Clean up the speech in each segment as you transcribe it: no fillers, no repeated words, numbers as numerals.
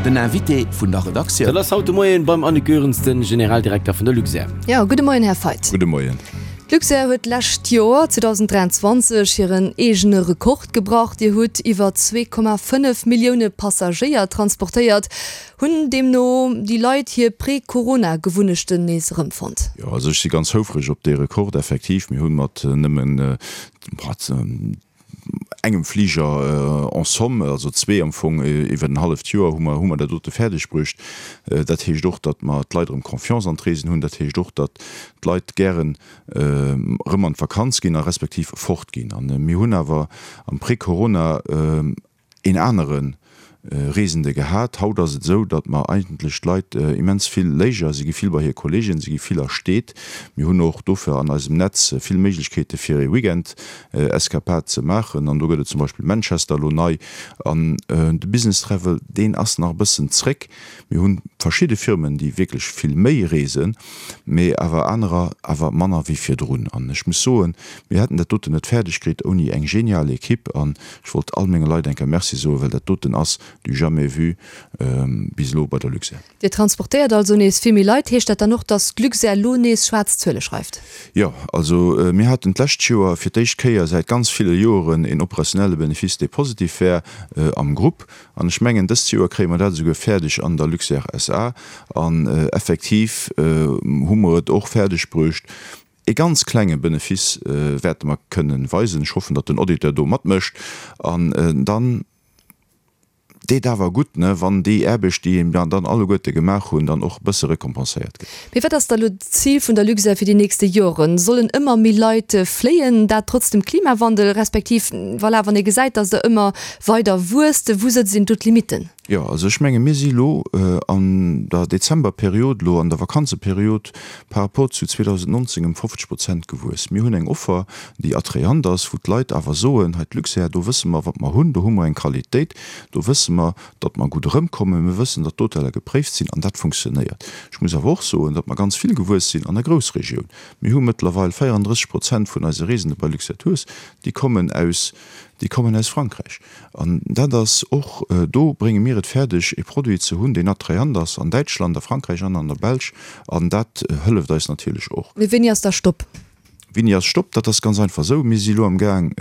Den Invité vun der Redaktioun. Dat ass haut de Moien beim Annick Goerens, den Generaldirekter vun der Luxair. Jo, gudde Moien, Här Feidt. Gudde Moien. D'Luxair huet d'lescht Joer, 2023, hiren eegene Rekord gebrach. Dir hutt iwwer 2,5 Millioune Passagéier transportéiert. Hunn deemno déi Leit hir Prä-Corona-Gewunnechten nees erëmfonnt? Jo, also ech si ganz houfreg op dee Rekord, effektiv. Mir hu mat nëmmen engem Fliger en somme, also zwee am Fong iwwer en halleft Joer, hu mer, hu mer dat dote fäerdeg bruecht. Dat heescht och, datt mer d'Leit erëm Confiance an d'Reesen hunn. Dat heescht och, datt d'Leit gären erëm an d'Vakanz ginn a respektiv fortginn. A mir hunn awer am Prä-Corona een anere Reesende gehat. Haut ass et esou, datt mer eigentlech d'Leit immens vill léiger, si gi vill bei hir Kolleegen, si gi vill a Steet. Mir hunn och dofir an eisem Netz vill Méiglechkeete fir ee Weekend-Eskapad ze maachen an do gëtt et zum Beispill Manchester elo nei. An de Business Travel, deen ass nach e bëssen zréck. Mir hu verschidde Firmen, déi wierklech vill méi reesen, mee awer anerer awer manner wéi virdrun. An ech muss soen, mir hätten dat doten net fäerdeg kritt ouni eng genial Equipe. An ech wollt all menge Leit eng Kéier Merci soen, well dat doten ass du jamais vu bis elo bei der Luxair. Dir transportéiert also nees vill méi Leit. Heescht dat dann och, datt d'Luxair elo nees schwaarz Zuele schreift? Jo, also mir haten d'lescht Joer fir d'éischt Kéier säit ganz ville Joeren een operationelle Benefice, dee positiv war am Grupp. An ech mengen, dëst Joer kréie mer dat esouguer fäerdeg an der Luxair SA. An effektiv hu mer et och fäerdeg bruecht, e ganz klenge Benefice wäerte mer kënnen weisen. Ech hoffen, datt den Auditeur do matmécht. An dann deet awer gutt, ne, wann déi Aarbecht, déi mer dann alleguerte gemaach hunn, dann och e bësse récompenséiert gëtt. Mee wat ass da lo d'Zil vun der Luxair fir déi nächste Joren? Sollen ëmmer méi Leit fléien, dat trotz dem Klimawandel, respektiv, voilà, wann ee gesäit, datt der ëmmer weider wuesst, wou sëtzt een do d'Limitten? Jo, also ech menge mir si lo an der Dezemberperiod, elo an der Vakanzeperiod, par rapport zu 2019 ëm 50 Prozent gewuess. Mir hunn eng Offer, déi attrayant ass, wou d'Leit awer soen, hei d'Luxair, do wësse mer, wat mer hunn, do hu mer eng Qualitéit, do wësse mer, datt mer gutt erëmkommen, mir wëssen, datt d'Hoteller gepréift sinn an dat funktionéiert. Ech muss awer och soen, datt mer ganz vill gewuess sinn an der Groussregioun. Mir hu mëttlerweil 34 Prozent vun eise Reesende bei Luxair Tours, déi kommen aus, déi kommen aus Frankräich. An dat ass och, do brénge mir et fäerdeg, e Produit ze hunn, deen attrayant ass an Däitschland, a Frankräich an an der Belsch. An dat hëlleft eis natierlech och. Mee wéini ass da Stopp? Wéini ass Stopp? Dat ass ganz einfach esou, Mir si elo am Gaang,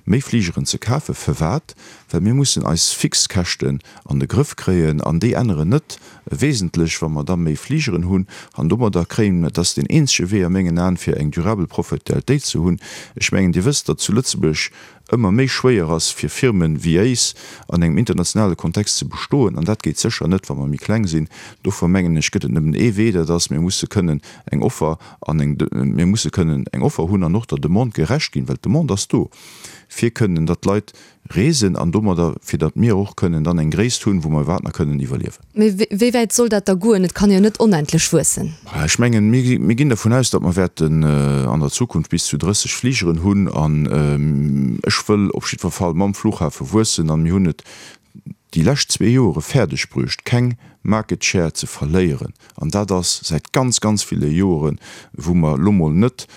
méi Fligeren ze kafen. Firwat? Well mir mussen eis Fixkäschten an de Grëff kréien an déi änneren net wesentlech, wa mer da méi Fligeren hunn. An domadder kréien, dat ass deen eenzege Wee a mengen Aen, fir eng durabel Profitabilitéit ze hunn. Ech mengen, Dir wësst, datt zu Lëtzebuerg ëmmer méi schwéier ass fir Firmen wéi éis an engem internationale Kontext ze bestoen, an dat geet sécher net, wa mer méi kleng sinn. Dofir mengen ech, gëtt et nëmmen ee Wee, dat ass, mir musse kënnen eng Offer an eng, mir musse kënnen eng Offer hunn an och der Demande gerecht ginn, well d'Demande ass do, fir kënnen, datt d'Leit reesen an domadder, fir datt mir och kënnen dann eng Gréisst hunn, wou mer iwwerhaapt nach kënnen iwwerliewen. Mee wéi wäit soll dat da goen? Et kann jo net onendlech wuessen. Ech mengen, mir ginn dervun aus, datt mer wäerten an der Zukunft bis zu 30 Fligeren hunn. An ech wëll op jiddwer Fall mam Flughafe wuessen. An mir hunn et déi lescht zwee Joere fäerdeg bruecht, keng Market Share ze verléieren. An dat ass säit ganz, ganz ville Joeren, wou mer elo mol net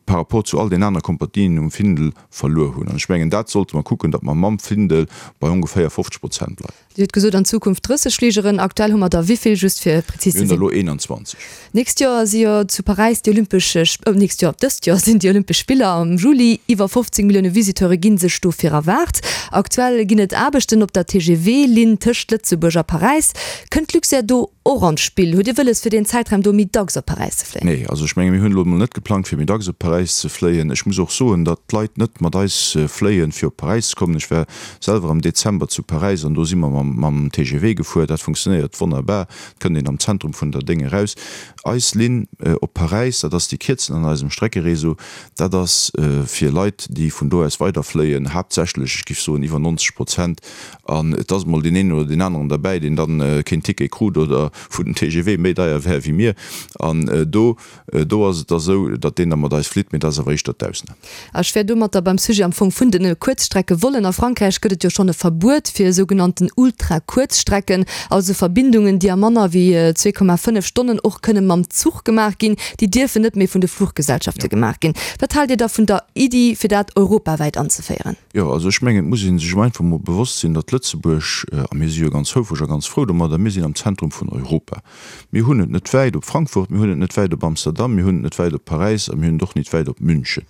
par rapport zu all den anere Kompanien um Findel verluer hunn. An ech mengen, dat sollte mer kucken, datt mer mam Findel bei ongeféier 50 Prozent bleiwen. Dir hutt gesot, an Zukunft 30 Fligeren. Aktuell hu mer der wéi vill, just fir prezis ze sinn? Mir hunn der elo 21. D'nächst Joer si jo zu Paräis déi Olympesch, oh, d'nächst Joer, dëst Joer sinn déi Olympesch Spiller am Juli. Iwwer 15 Millioune Visiteure gi sech dofir erwaart. Aktuell ginn et Aarbechten op der TGV-Linn tëscht Lëtzebuerg a Paräis. Kënnt d'Luxair do och an d'Spill? Hutt Dir wëlles fir deen Zäitraum do méi dacks op Paräis ze fléien? Nee, also ech menge mir hunn elo emol net geplangt fir méi dacks op Paräis ze fléien. Ech muss och soen, datt d'Leit net mat eis fléien fir op Paräis ze kommen. Ech war selwer am Dezember zu Paräis an do si mer mam mam TGV gefuer. Dat funktionéiert wonnerbar. Et kënnt een am Zentrum vun der Déng eraus. Eis Linn op Paräis, dat ass déi kierzen an eisem Streckeréseau, dat ass fir Leit déi vun do aus weiderfléien, haaptsächlech, ech géif soen iwwer 90 Prozent, An et ass emol deen een oder deen aneren derbäi, deen dann keen Ticket krut oder wou den TGV méi deier wär wéi mir. An do, do ass et da sou, datt deen da mat eis flitt. flitt, mee dat ass awer éischter d'Ausnam. Ech wär domatter beim Sujet am Fong vun de Kuerzstreckevollen. A Frankräich gëtt et jo schonn e Verbuet fir sougenannten Ultrakuerzstrecken, also Verbindungen, déi a manner wéi 2,5 Stonnen och kënne mam Zuch gemaach ginn. Déi dierfen net méi vun de Fluchgesellschafte gemaach ginn. Wat haalt Dir da vun der Iddi, fir dat europawäit anzeféieren? Jo, also ech mengen, et muss ee sech einfach emol bewosst sinn, datt Lëtzebuerg, a mir si jo ganz houfreg a ganz frou domadder, mir sinn am Zentrum vun Europa. Mir hunn et net wäit op Frankfurt, mir hunn et net wäit op Amsterdam, mir hunn et net wäit op Paräis a mir hunn et och nit wäit op München.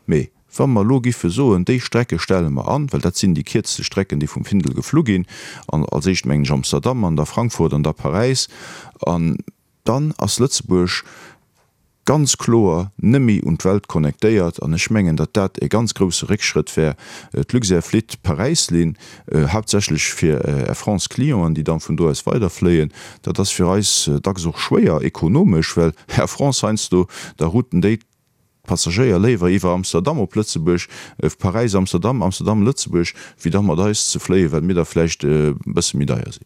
Mee wa mer elo giffe soen, déi Strecke stelle mer an, well dat sinn déi kierzte Strecken, déi vum Findel geflu ginn, an als éischt mengen ech Amsterdam an da Frankfurt an da Paräis, an dann ass Lëtzebuerg ganz kloer neméi un d'Welt connectéiert an ech mengen, datt dat e ganz grousse Réckschrëtt wär. D'Luxair flitt Paräis-Linn, haaptsächlech fir Air France Clienten, déi dann vun do aus weiderfléien. Dat ass fir eis dacks och schwéier ekonomesch, well Air France heiansdo da routen déi d'Passagéier léiwer iwwer Amsterdam op Lëtzebuerg, Paräis, Amsterdam, Amsterdam, Lëtzebuerg, wéi da mat eis ze fléien, well mir da vläicht e bësse méi deier sinn.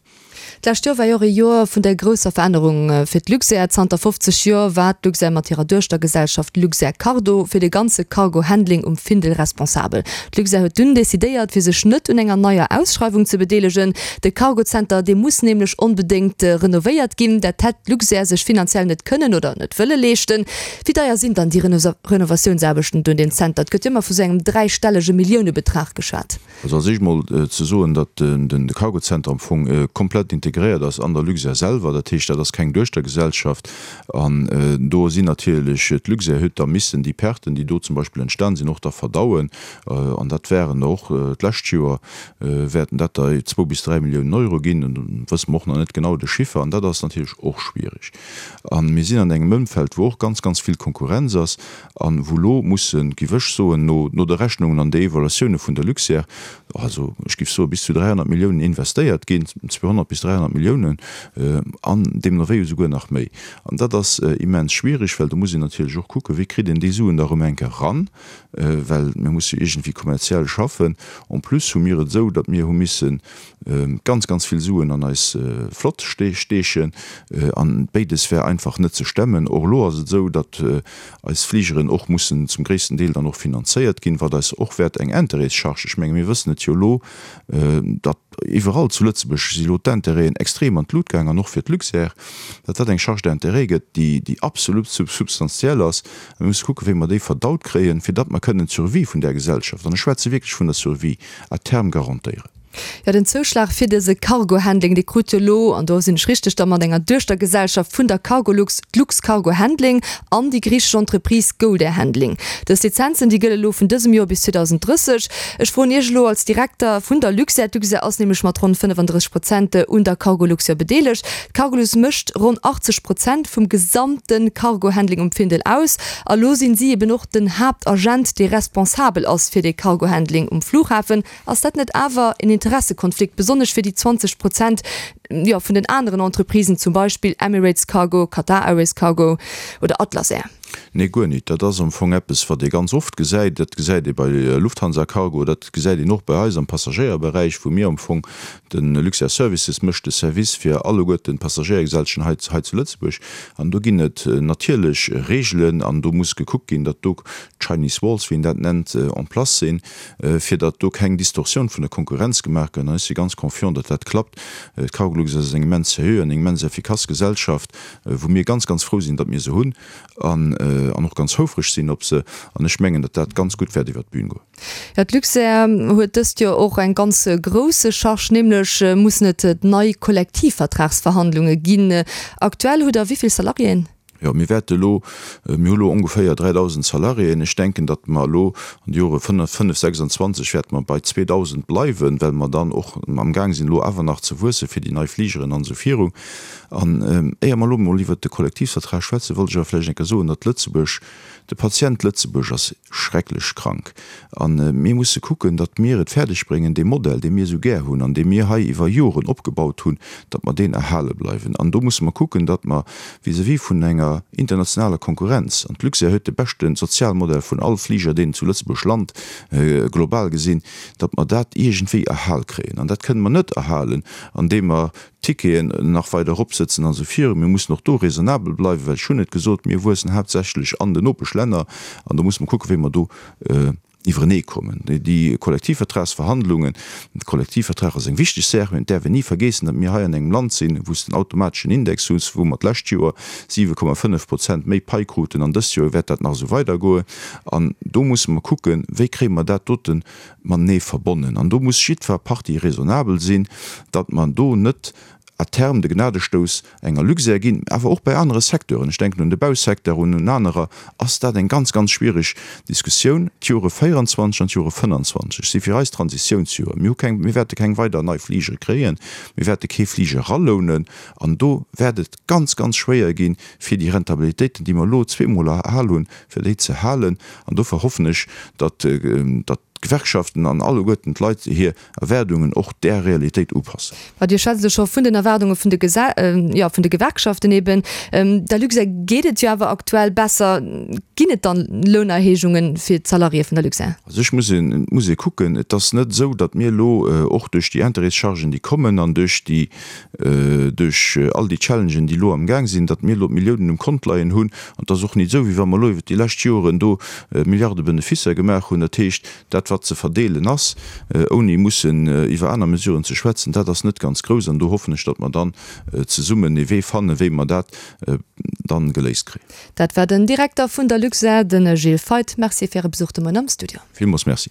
D'lescht Joer war jo och ee Joer vun der grousser Verännerung fir d'Luxair. Zanter 50 Joer war d'Luxair mat hirer Duechtergesellschaft Luxair Cargo fir de ganze Cargo-Handling um Findel responsabel. D'Luxair huet dunn decidéiert, fir sech net un enger neier Ausschreiwung ze bedeelegen. De Cargozenter, dee muss nämlech onbedéngt renovéiert ginn. Dat hätt d'Luxair sech finanziell net kënnen oder net wëlle leeschten. Wéi deier sinn dann déi Renovatiounsaarbechten do un deem Zenter? Et gëtt jo ëmmer vu sou engem dräistellege Milliounebetrag geschwat. Also als éischt mol ze soen, datt de Cargozenter am Fong komplett integréiert ass an der Luxair selwer. Dat heescht, dat ass keng Duechtergesellschaft. An do sinn natierlech, d'Luxair huet da missen déi Perten, déi do zum Beispill entstan sinn, och da verdauen. An dat wären der och d'lescht Joer wäerten dat der zwou bis dräi Milliounen Euro ginn. Do wësse mer och nach net genau de Chiffer. An dat ass natierlech och schwierig. A mir sinn an engem Ëmfeld, wou och ganz, ganz vill Konkurrenz ass. An wou elo mussen, giff ech soen, no no de Rechnungen an de Evaluatioune vun der Luxair, also ech giff soe bis zu 300 Milliounen investéiert ginn, 200 bis 300 Milliounen, an deemno wéi esouguer nach méi. An dat ass immens schwierig, well do muss een natierlech och kucken, wéi kritt een déi Suen da erëm eng Kéier eran, well mir musse jo iergendwéi kommerziell schaffen. En plus hu mir et esou, datt mir hu missen ganz, ganz vill Suen an eis Flott steechen an béides wär einfach net ze stemmen. Och elo ass et esou, datt eis Fligeren och mussen zum gréissten Deel dann och finanzéiert ginn, wat eis och wäert eng Intérêtscharge, ech menge mir wëssen et jo elo, datt iwwerall zu Lëtzebuerg si elo d'Intérêten extrem an d'Lut gaang an och fir d'Luxair, datt dat eng Charge d'intérêt gëtt, déi absolut substantiell ass. A mir musse kucken, wéi mer déi verdaut kréien, fir datt mer kënnen d'Survie vun där Gesellschaft, an ech schwätze wierklech vun der Survie, à terme garantéieren. Jo, den Zouschlag fir dëse Cargo-Handling, dee krut jo elo, an do sinn ech richteg, da mat enger Duechtergesellschaft vun der Cargolux, d'Luxcargo Handling an déi griichesch Entreprise Goldair Handling. Dës Lizenzen, déi gëlle elo vun dësem Joer bis 2030. Ech froen Iech elo als Direkter vun der Luxair, d'Luxair ass nämlech mat ronn 35 Prozent un der Cargolux jo bedeelegt. D'Cargolux mécht ronn 80 Prozent vum gesamte Cargo-Handling um Findel aus. A lo sinn si eben och den Haaptagent, dee responsabel ass fir dee Cargo-Handling um Flughafen. Ass dat net awer en Interessekonflikt, besonnesch fir déi 20 Prozent, jo, vun den aneren Entreprisen, zum Beispill Emirates Cargo, Qatar Airways Cargo oder Atlas Air? Nee, guer nit. Dat ass am Fong eppes, wat ee ganz oft gesäit. Dat gesäit ee bei Lufthansa Cargo, dat gesäit een och bei eis am Passagéierberäich, wou mir am Fong, de Luxair Services mécht de Service fir alleguerten d'Passagéiergesellschaften hei, hei zu Lëtzebuerg. An do ginn et natierlech Regeln an do muss gekuckt ginn, datt do Chinese Walls, wéi een dat nennt, en place sinn. fir datt do keng Distorsioun vun der Konkurrenz gemaach gëtt. An ech si ganz confiant, datt dat klappt. D'Cargolux ass eng immens seriö an eng immens effikass Gesellschaft, wou mir ganz, ganz frou sinn, datt mir se hunn an och ganz houfreg sinn op se. An ech mengen, datt dat ganz gutt wäert iwwert d'Bün goen. Jo, d'Luxair huet dëst Joer och eng ganz grousse Charge, nämlech mussen et nei Kollektivvertragsverhandlunge ginn. Aktuell hutt Der wéi vill Salariéen? Jo, mir wäerte elo, mir hu elo ongeféier 3.000 Salariéen. Ech denken, datt mer elo an de Jore 5, 26 wäerte mer bei 2.000 bleiwen, well mer dann och amgaang sinn elo awer nach ze wuesse fir déi nei Fligeren an esou viru. An éier mer elo emol iwwert de Kollektivvertrag schwätzen, wollt ech awer vläicht eng Kéier soen, datt Lëtzebuerg, de Patient Lëtzebuerg ass schrecklech krank. A mir musse kucken, datt mir et fäerdeg bréngen, dee Modell, dee mir esou gär hunn an dee mir hei iwwer Joren opgebaut hunn, datt mer deen erhale bleiwen. An do musse mer kucken, datt mer vis-à-vis vun enger. enger internationaler Konkurrenz, an d'Luxair huet de beschte Sozialmodell vun all Fliger, deen zu Lëtzebuerg lant, global gesinn, datt mer dat iergendwéi erhal kréien. An dat kënne mer net erhalen, andeem mer d'Ticketen nach weider eropsëtzen an esou virun. Mir mussen och do raisonnabel bleiwen, well ech hunn et gesot, mir wuessen haaptsächlech an den Nopeschlänner an do musse mer kucken, wéi mer do iwwerenee kommen. Déi Kollektivvertragsverhandlungen, de Kollektivvertrag ass eng wichteg Saach, mä et däerf een ni vergeessen, datt mir hei an engem Land sinn, wou s de en automateschen Index hues, wou mer d'lescht Joer 7,5 Prozent méi Pai kruten an dëst Joer wäert dat nach esou weidergoen. An do musse mer kucken, wéi kréie mer dat dote matenee verbonnen. An do muss jiddwer Partie raisonnabel sinn, datt mer do net à terme de Gnadestouss enger Luxair ginn, awer och bei anere Secteuren, ech denken un de Bausecteur, un un anerer, ass dat eng ganz, ganz schwierig Diskussioun. D'Jore 24 an d'Jore 25 si fir eis Transitiounsjore. Mir hu keng, mir wäerte keng weider nei Fligere kréien, mir wäerte kee Fliger eralounen an do wäert et ganz, ganz schwéier ginn, fir déi Rentabilitéiten, déi mer elo zweemol erhal hunn, fir déi ze halen. An dofir hoffen ech, datt, datt d'Gewerkschaften an alleguerten d'Leit hir Erwaardungen och där Realitéit upassen. Ma Dir schwätzt elo scho vun den Erwaardunge vun de Gese, jo, vun de Gewerkschaften eben. Der Luxair geet et jo awer aktuell besser. Ginn et dann Lounerhéijunge fir d'Salariéë vun der Luxair? Also ech muss een, et muss ee kucken, et ass net esou, datt mir elo och duerch déi Intérêtschargen, déi kommen an duerch déi, duerch all déi Challengen, déi elo amgaang sinn, datt mir elo d'Milliounen um Kont leien hunn. An et ass och nit esou, wéi wa mer elo iwwert déi lescht Joren do Milliarde Beneficer gemaach hunn. Dat heescht, dat wat ze verdeelen ass, ouni mussen iwwer aner Mesuren ze schwätzen, dat ass net ganz grouss. An do hoffen ech, datt mer dann zesummen ee Wee fannen, wéi mer dat dann geléist kréien. Dat war den Direkter vun der Luxair, de Gilles Feith. Merci fir Äre Besuch de Moien am Studio. Villmools Merci.